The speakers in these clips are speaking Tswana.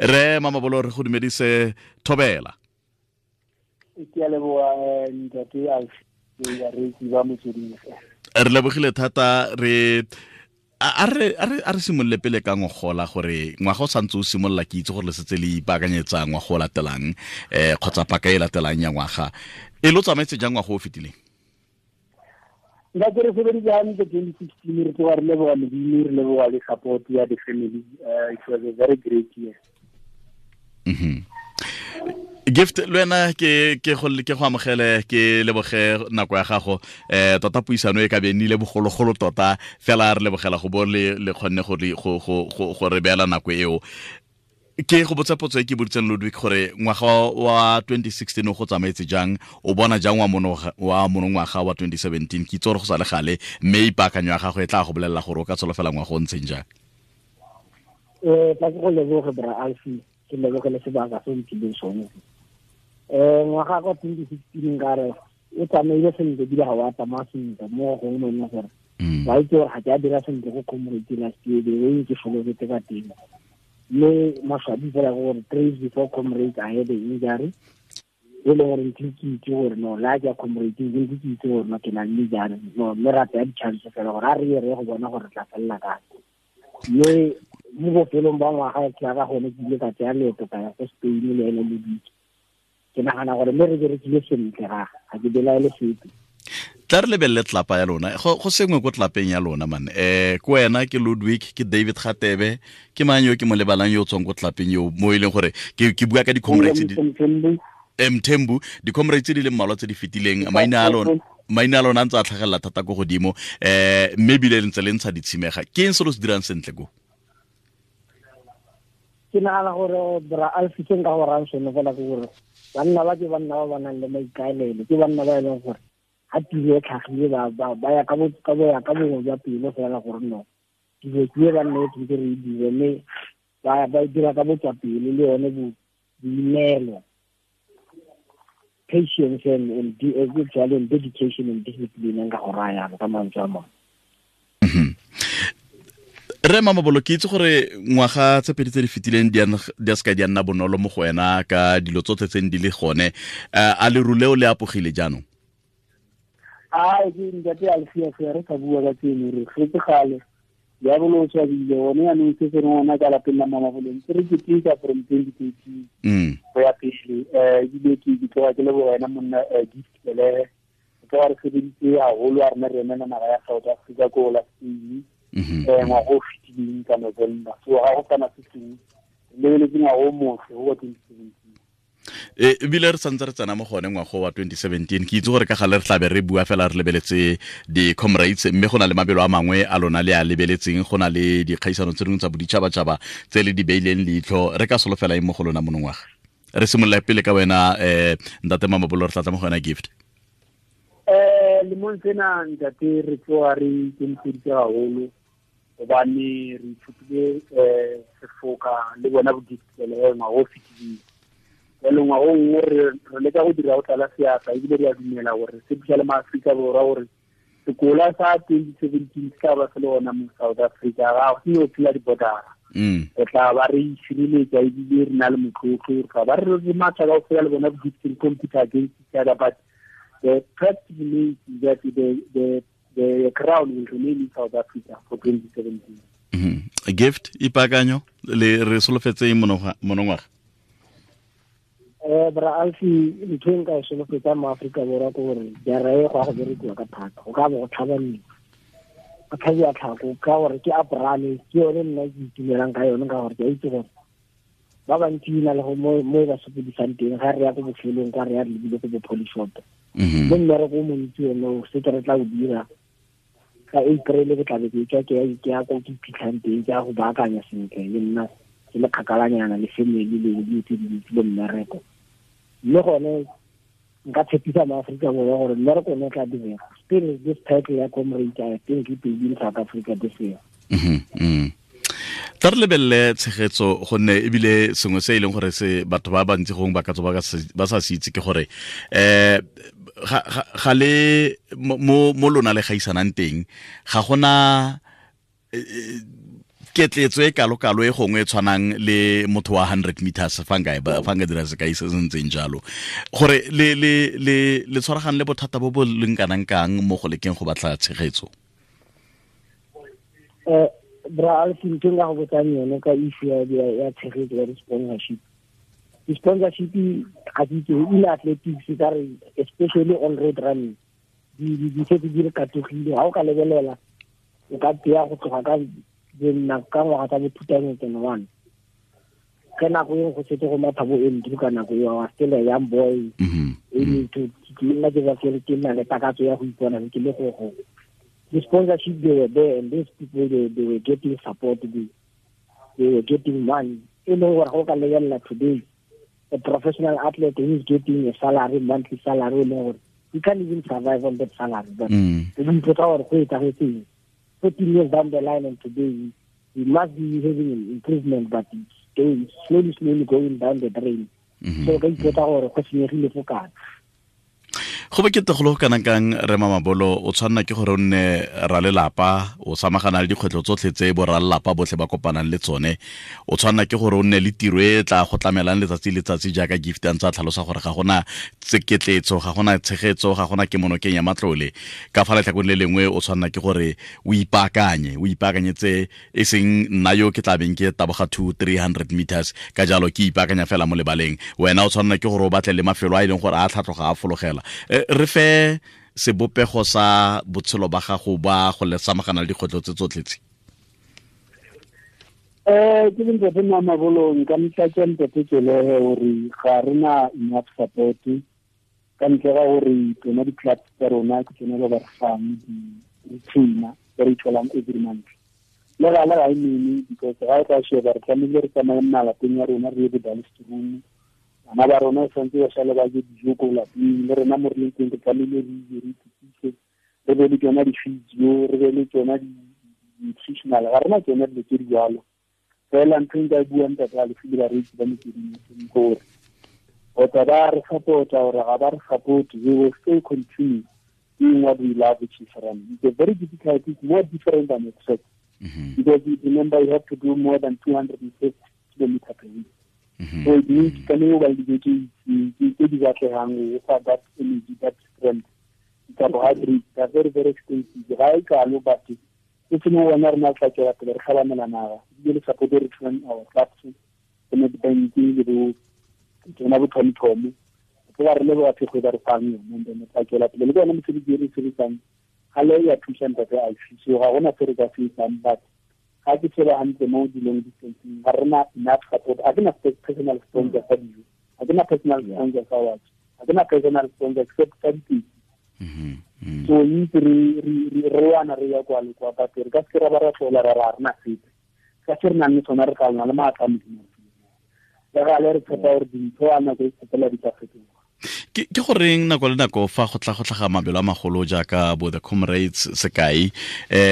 Re Mamabolo, re go dumedise, thobela. Ke a leboga, ntate Alfi, bareetsi ba Motsweding. Re lebogile thata. Re a re a re a re simolole pele ka ngogola, gore ngwaga o santse o simolola, ke itse gore le setse le ipaakanyetsa ngwaga o latelang, kgotsa paka e latelang ya ngwaga. E lo tsamaetse jang ngwaga o fetileng? Nka ke re sebeditse hantle 2016. Re tloga re leboga Modimo, re leboga le support ya the family. It was a very great year. Gift, le wena ke go amogele, ke leboge nako ya gago. Tota puisano e ka be nnile bogologolo tota, fela re lebogela go bo le kgonne go re beela nako eo. Ke go botsa potso e ke boditseng Ludwig, gore ngwaga wa 2016 o go tsamaetse jang, o bona jang wa monongwaga wa 2017? Ke itse gore go sa le gale, mme ipaakanyo ya gago e tla go bolelela gore o ka tsholofela ngwaga o ntseng jang. Tla ke go leboge, bra Alfi, ke lebogele sebaka se o mphileng sone. Ngwaga kwa 2016 nkare o tsamaile sentle, ebile ga wa tsamaya sentle mo gongwe mo e leng gore wa itse gore ga ke a dira sentle go Comrade last year, the way ke solofetse ka teng. Mme maswabi fela ke gore 3 days before Comrade I had an injury, e leng gore ntse ke itse gore no la ke ya Comrade, ke ntse ke itse gore no ke na le injury no, mme ra tsaya di-chance fela gore a re ye re go bona gore re tla felela kae. Mme mo bofelong ba ngwaga ke ya ka gone ke ile ka tsaya leeto ka ya ko Spain le ene le dike. Ke nagana gore mme re berekile sentle, ga ke belaele sepe. Tla re lebelele tlapa ya lona. Go sengwe ko tlapeng ya lona man. Ke wena, ke Ludwig, ke David Gatebe, ke mang yo ke mo lebalang yo o tswang ko tlapeng yo mo e leng gore ke bua ka di-comrades Mthembu, di-comrades tse di leng mmalwa tse di fetileng, maina a lona a ntse a tlhagelela thata ko godimo, mme ebile le ntse le ntsha ditshimega. Ke eng se lo se dirang sentle ko? Ke nagana gore, bra Alfi, se nka go rang sone fela ke gore banna ba ke banna ba ba nang le maikaelelo, ke banna ba e leng gore ga tiro e tlhagile ba ya ka bongwe jwa pelo fela gore no dilo ke e banna e tshwanetse re e dire, mme ba e dira ka botswapelo le yone boineelo, patience and jalo, and dedication and discipline, nka go raya ka mantswe a mangwe. Re Mamabolo, ke itse gore ngwaga tse pedi tse di fetileng di a seka di a nna bonolo mo go wena ka dilo tsotlhe tse di le gone. A leru leo le apogile jaanong? A ke ntate Alfia, re ka bua ka tseno, re getse gale diabolo o swabile one. Yaanong se se reng ona ka lapeng la Mamabolong se re keteka from 2013 go ya pele. Ebile ke tloga ke leboga wena monna, Gift Belehe. Re tloga re sebeditse haholo a rena re emela naga ya South Africa ko la Spain ngwaga o fetileng ka November. So ga go kana se sengwe, re lebeletse ngwaga o motle go wa 2017. Ebile re santse re tsena mo gone ngwago wa 2017. Ke itse gore ka gale re tlabe re bua fela re lebeletse di-Comrades, mme go na le mabelo a mangwe a lona le a lebeletseng, go na le dikgaisano tse dingwe tsa boditšhabatšhaba tse le di beileng leitlho. Re ka solofela eng mo go lona monongwaga? Re simolola pele ka wena, ntate Mamabolo, re tlatla mo go wena, Gift. Lemong sena, ntate, re tloga re ikemiseditse haholo hobane re ithutile sefoka le bona bodikele ngwaga o fetileng. Jalo ngwaga o nngwe re leka go dira go tlala seatla, ebile re a dumela gore se thusa le maAforika Borwa gore sekola sa 2017 se tla ba se le gona mo South Africa. Ga go seno phela di-bordera, re tla ba re isireletsa ebile re na le motlotlo, re tla ba re matha ka go fela le bona bo compete against each other, but the fact remains that the crown will remain in South Africa for 2017. Gift, ipakanyo le re solofetse monongwaga? Bra Alfi, ntho e nka e solofetsang mo Aforika Borwa ke gore jara e go ya go berekiwa ka thata, go ka bo go tlhabaniwa, go tlhabiwa tlhako, ka gore ke aprale ke yone nna ke itumelang ka yone, ka gore ke a itse gore ba bantsi na le mo e ba sokodisang teng ga re ya ko bofelong kwa re ya re lebile ko bo Polishop. Mme mmereko o montsi one o setse re tla o dira ka April, ke tlabe ke tswa ke ya ko ke iphitlhang teng, ke ya go baakanya sentle le nna ke le kgakalanyana le family le dilo tse dintsi le mmereko. Mme gone nka tshepisa maAforika Borwa gore mmereko one o tla direga. Still this title ya Comrade, I think it will be in South Africa this year. Tla re lebelele tshegetso, gonne ebile sengwe se e leng gore se batho ba bantsi gongwe ba ka tswa ba sa se itse ke gore ga le mo lona le gaisanang teng, ga gona. Ketletso e kalo-kalo e gongwe e tshwanang le motho wa 100 meters, fa nka dira sekai se se ntseng jalo, gore le tshwaragane le bothata bo bo leng kanang kang mo go lekeng go batla tshegetso? Bra Alfi, ntho nka go botsang yone ka issue ya tshegetso ya di-sponsorship. Di-sponsorship ga ke itse in athletics ka re, especially on road running, di setse di re katogile. Ga o ka lebelela, o ka teya go tloga ka ka ngwaga tsa bo 2001, ke nako e go setse go matha bo Andrew. Ka nako eo I was still a young boy, aiming to ke nna ke ba ke nna le takatso ya go ipona ke le go the sponsorship. They were there and these people, they were getting support, they were getting money. E leng gore go ka lebelela today, a professional athlete who is getting a salary, monthly salary, e leng gore you can't even survive on that salary, but o ipotsa gore go etsagetseng 14 years down the line, and today we must be having an improvement, but it's going slowly, slowly going down the drain. So ka ipotsa gore go senyegile fo kae. Go bokete go le go kanang kang, re Mamabolo? O tshwanela ke gore o nne ralelapa, o samagana le dikgwetlho tsotlhe tse bo ralelapa botlhe ba kopanang le tsone. O tshwanela ke gore o nne le tiro e tla go tlamelang letsatsi le letsatsi, jaaka Gift a ntse a tlhalosa gore ga gona tseketletso, ga gona tshegetso, ga gona kemonokeng ya matlole. Ka fa letlhakong le lengwe, o tshwanela ke gore o ipaakanye, o ipaakanyetse e seng nna yo ke tlabeng ke taboga 2 300 meters, ka jalo ke ipaakanya fela mo lebaleng. Wena o tshwanela ke gore o batle le mafelo a e leng gore a tlhatlhoga, a fologela. Re fe sebopego sa botshelo ba gago ba go le samagana le dikgwetlho tse tsotlhe tse. Ke le ntate Mamabolo, nka motlatsa ntate Tselehe gore ga re na enough support, ka ntle ga gore tsona di-clubs tsa rona ke tsone ba ba re fang di-retainer tse re tholang every month. Le gale ga e nene, because ga e ka sheba, re tlamehile re tsamaye malapeng ya rona, re ye bo-Dullstroom. Bana ba rona tshwanetse ba sale ba je dijo ko lapeng, le rena mo re leng teng re tlamehile re ije, re itukise, re be le tsona di-physio, re be le tsona di-nutritional. Ga rena tsona dilo tse di jalo. Fela ntho e nka e buang, ntate Alfi le bareetsi ba Motsweding, gore kgotsa ba re support-a gore ga ba re support, we will still continue doing what we love, which is running. It's a very difficult, it's more different than expect, because you remember you have to do more than 250 kilometer per week. So it means tlamehile o ba le dijo tse di batlegang go fa that energy, that strength. Carbohydrates are very, very expensive. Ga e kalo, but e seng wena rena tla tswela pele re tlhabanela naga, ebile le support e re thusang our clubs, bo Nedbank le bo tsona bo TomTom, ke ba re leboga thekgo e ba re fang yone. And then tla tswela pele le ke yone mosebetsi e re sebetsang ga le ya thusa ntate Alfi. So ga gona se re ka se etsang, but ga ke sheba hantle mo dilong distancing, ga rena enough support. Ga ke na personal sponsor sa dijo, ga ke na personal sponsor sa watch, ga ke na personal sponsor except sa ditekisi. So itse re wana re ya kwa le kwa, but re ka se ra ba ra tlola ra ra rena sepe ka se re nang le sona. Re tla na le maatla a Modimo le gale, re tshepa gore dintho a nako e tshepela di tla fetoga. Ke goreng nako le nako fa go tla go tlhaga mabelo a magolo jaaka bo the Comrades, sekai,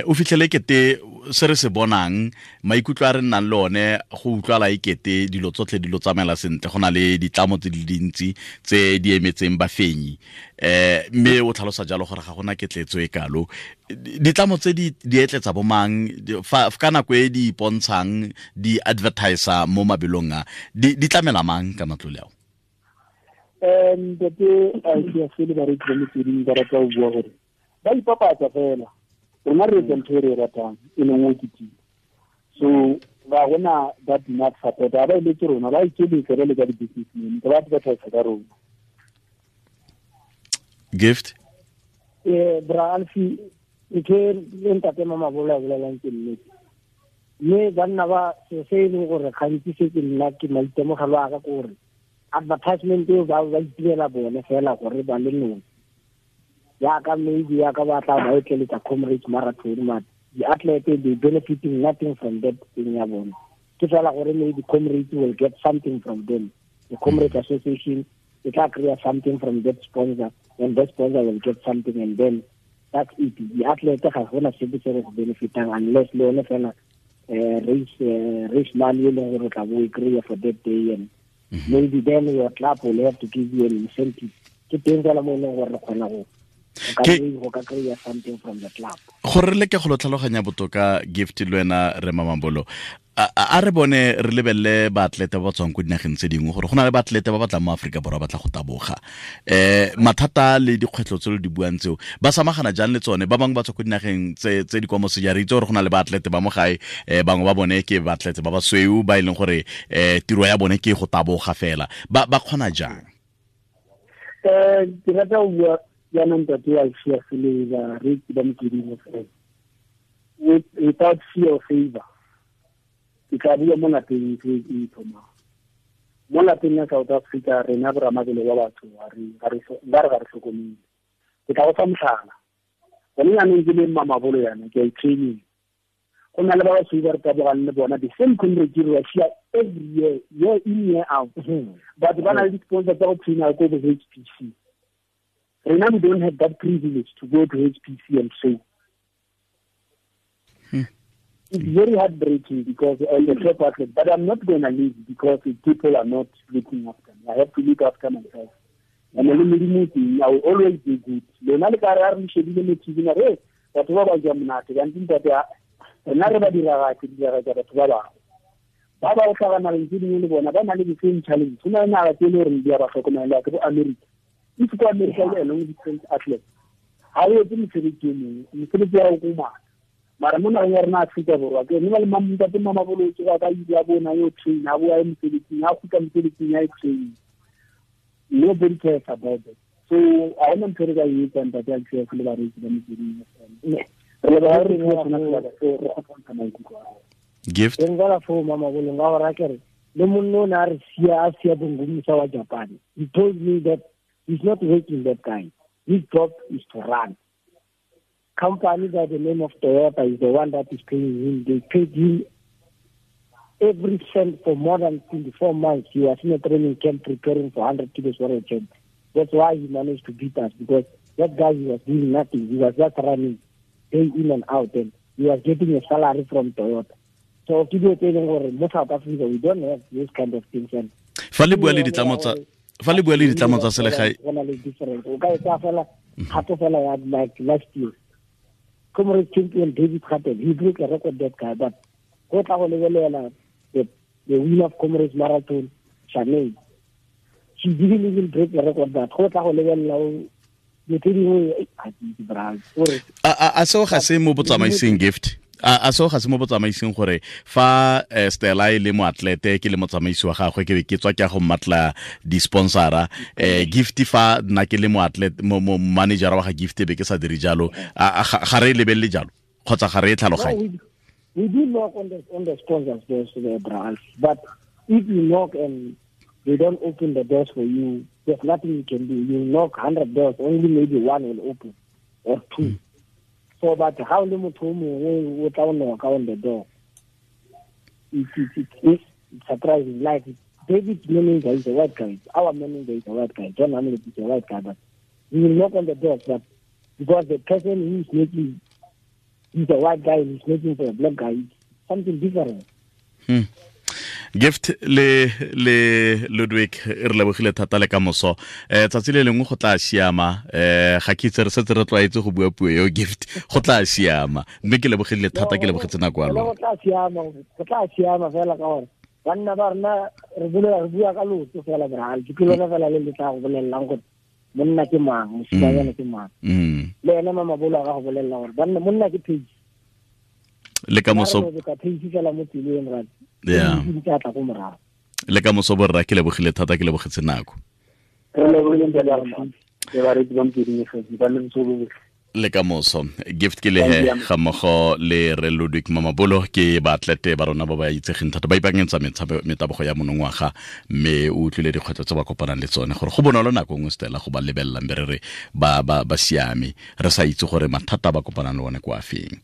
o fitlhele kete se re se bonang, maikutlo a re nnang le one, go utlwala e kete dilo tsotlhe dilo tsamaela sentle, go na le ditlamo tse di dintsi tse di emetseng bafenyi, mme o tlhalosa jalo gore ga gona ketletso e kalo? Ditlamo tse di etletsa bomang fa ka nako e di ipontshang di advertiser mo mabelong a, di tlamela mang ka matlole ao? Ntate Alfiase le bareetsi ba Motsweding, ba rata go bua gore ba ipapatsa fela. Rona re etsa ntho e re e ratang, e leng o kitima. So ga gona that enough support. Ga ba eletse rona, ba ikeletsa ba le ka di-businessmen, ba advertise ka rona. Gift. Bra Alfi, ntho e ntate Mamabolo a bolelang ke nnete, mme banna ba se se e leng gore gantsi se ke nna ke maitemogelo a ka ke gore advertisement eo ba itirela bone fela gore ba le nosi, yaka maybe yaka ba tla ba etleletsa Comrades Marathon, but the athlete, they benefiting nothing from that thing ya bone. Ke fela gore maybe Comrades will get something from them, the Comrades Association e tla kry-a something from that sponsor, and that sponsor will get something, and then that's it. The athlete ga gona sepe se re se benefitang, unless le yone fela race money e leng gore o tla bo e kry-a for that day, and maybe then your club will have to give you an incentive. Ke teng fela mo e leng gore re kgona go Go ka kry-a something from the club. Gore re leke go lo tlhaloganya botoka, Gift, le wena re Mamabolo, a re bone re lebelele baatlete ba ba tswang ko dinageng tse dingwe, gore go na le baatlete ba ba tlang mo Aforika Borwa ba tla go taboga. Mathata le dikgwetlho tse lo di buang tseo, ba samagana jang le tsone? Ba bangwe ba tswa ko dinageng tse di kwa moseja. Re itse gore go na le baatlete ba mo gae, bangwe ba bone ke baatlete ba basweu ba e leng gore tiro ya bone ke go taboga fela. Ba kgona jang? Ke rata go bua jaanong, ntate wa Alfias le bareetsi ba Motsweding FM, without fear or favor. Ke tla bua mo lapeng e e thomang mo lapeng ya South Africa. Rena boramabelo ba batho ba re ga re tlhokomele. Ke tla go fa motlhala. Gone jaanong ke le Mamabolo yana ke a i-training, go na le ba basweu ba re tabogang le bona, the same comrade Russia, every year, year in, year out, but ba na le di-sponsor tsa go traina ko bo HPC. Rena we don't have that privilege to go to HPC and train. It's very heartbreaking because I'm a top athlete, but I'm not going to leave because the people are not looking after me. I have to look after myself. And I will always be good. Lona le ka re a re shebile mo TV, re batho ba ba ja monate, kante ntate, rena re ba diragatse diragatsa batho ba bangwe ba ba tlhaga nageng tse dingwe, le bona ba na le the same challenge. Go na le naga tse e le goreng di a ba tlhokomela, ke bo America. If ko America le long distance athlete, ga o etse mosebetsi o mongwe, mosebetsi wa go komana. Mara mo nageng ya rena Aforika Borwa, ke ne ba le ntate Mamabolo tsoga ka ile a bona yo train, a boa ye mosebetsing, a kgutla mosebetsing ya e train. Nobody cares about it. So ga gona ntho re ka e etsang, ntate Alfias le bareetsi ba Motsweding FM. Re leboga re re sona sebaka seo re kgotsa ntsha maikutlo a rona. Gift. Teng fela foo, Mamabolo, nka gore a kere le monno o ne a re sia, a sia Bongomisa wa Japan. He told me that he's not working, that guy. His job is to run. Company by the name of Toyota is the one that is paying him. They paid him every cent for more than 24 months. He was in a training camp preparing for 100 kilos world champ. That's why he managed to beat us, because that guy, he was doing nothing. He was just running day in and out, and he was getting a salary from Toyota. So ke dilo tse e leng gore mo South Africa we don't have those kind of things. And Fa le bua le ditlamo tsa selegae, go na le difference. O ka e tsaya fela kgato fela ya like last year, Comrade champion David Kgatel, he broke a record, that guy, but go tla go lebelela the winner of Comrades Marathon, Shanae, she didn't even break the record. But go tla go lebelela dilo tse dingwe, a ke itse, bra, gore A seo ga se mo botsamaising, Gift? A seo ga se mo botsamaising, gore fa Stella e le moatlete, ke le motsamaisi wa gagwe, ke be ke tswa ke ya go mmatla di-sponsora, Gift, fa nna ke le moatlete, mo manager wa ga Gift, be ke sa dire jalo? Ga re e lebelele jalo kgotsa ga re e tlhaloganye? We do knock on the sponsors' doors, bra, but if you knock and they don't open the doors for you, there's nothing you can do. You knock 100 doors, only maybe one will open or two. So, but how le motho o mongwe o tla o knock on the door? It's surprising. Like David's manager is a white guy. Our manager is a white guy. John Hamlet is a white guy. But we will knock on the doors, but because the person who is making, he's a white guy and he's making for a black guy, it's something different. Gift le Ludwig, re lebogile thata. Le ka moso, tsatsi le lengwe go tla siama. Ga ke itse, re setse re tlwaetse go bua puo eo, Gift, go tla siama. Mme ke lebogile thata, ke lebogetse nako ya lona. Go tla siama, go tla siama fela, ka gore banna ba rena re bolela, re bua ka lotso fela, bra. Ke lona fela le le tla go bolelelang gore monna ke mang, mosimanyana ke mang. Le ene Mamabolo a ka go bolelela gore banna, monna ke page. Le ka moso. Ka page fela mo tseleng ra di tla tla ko morago. Le ka moso, borra, ke lebogile thata, ke lebogetse nako. Re lebogile, ntate Alfi, le bareetsi ba Motsweding FM. Ba le botshelo bo. Le ka moso. Gift ke lehe ga mmogo le re Ludwig Mamabolo, ke baatlete ba rona ba ba itsegeng thata, ba ipaakanyetsa metabogo ya monongwaga, mme o utlwile dikgwetlho tse ba kopanang le tsone, gore go bonolo nako nngwe, Stella, go ba lebelelang be re re ba siame, re sa itse gore mathata a ba kopanang le one kwa feng.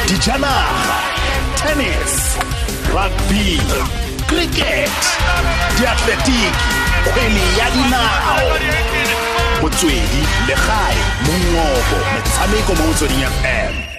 Dijanaga, tennis, rugby, cricket, diatletiki, kgwele ya dinao, motswedi legae, mongobo, metshameko mo Motsweding FM.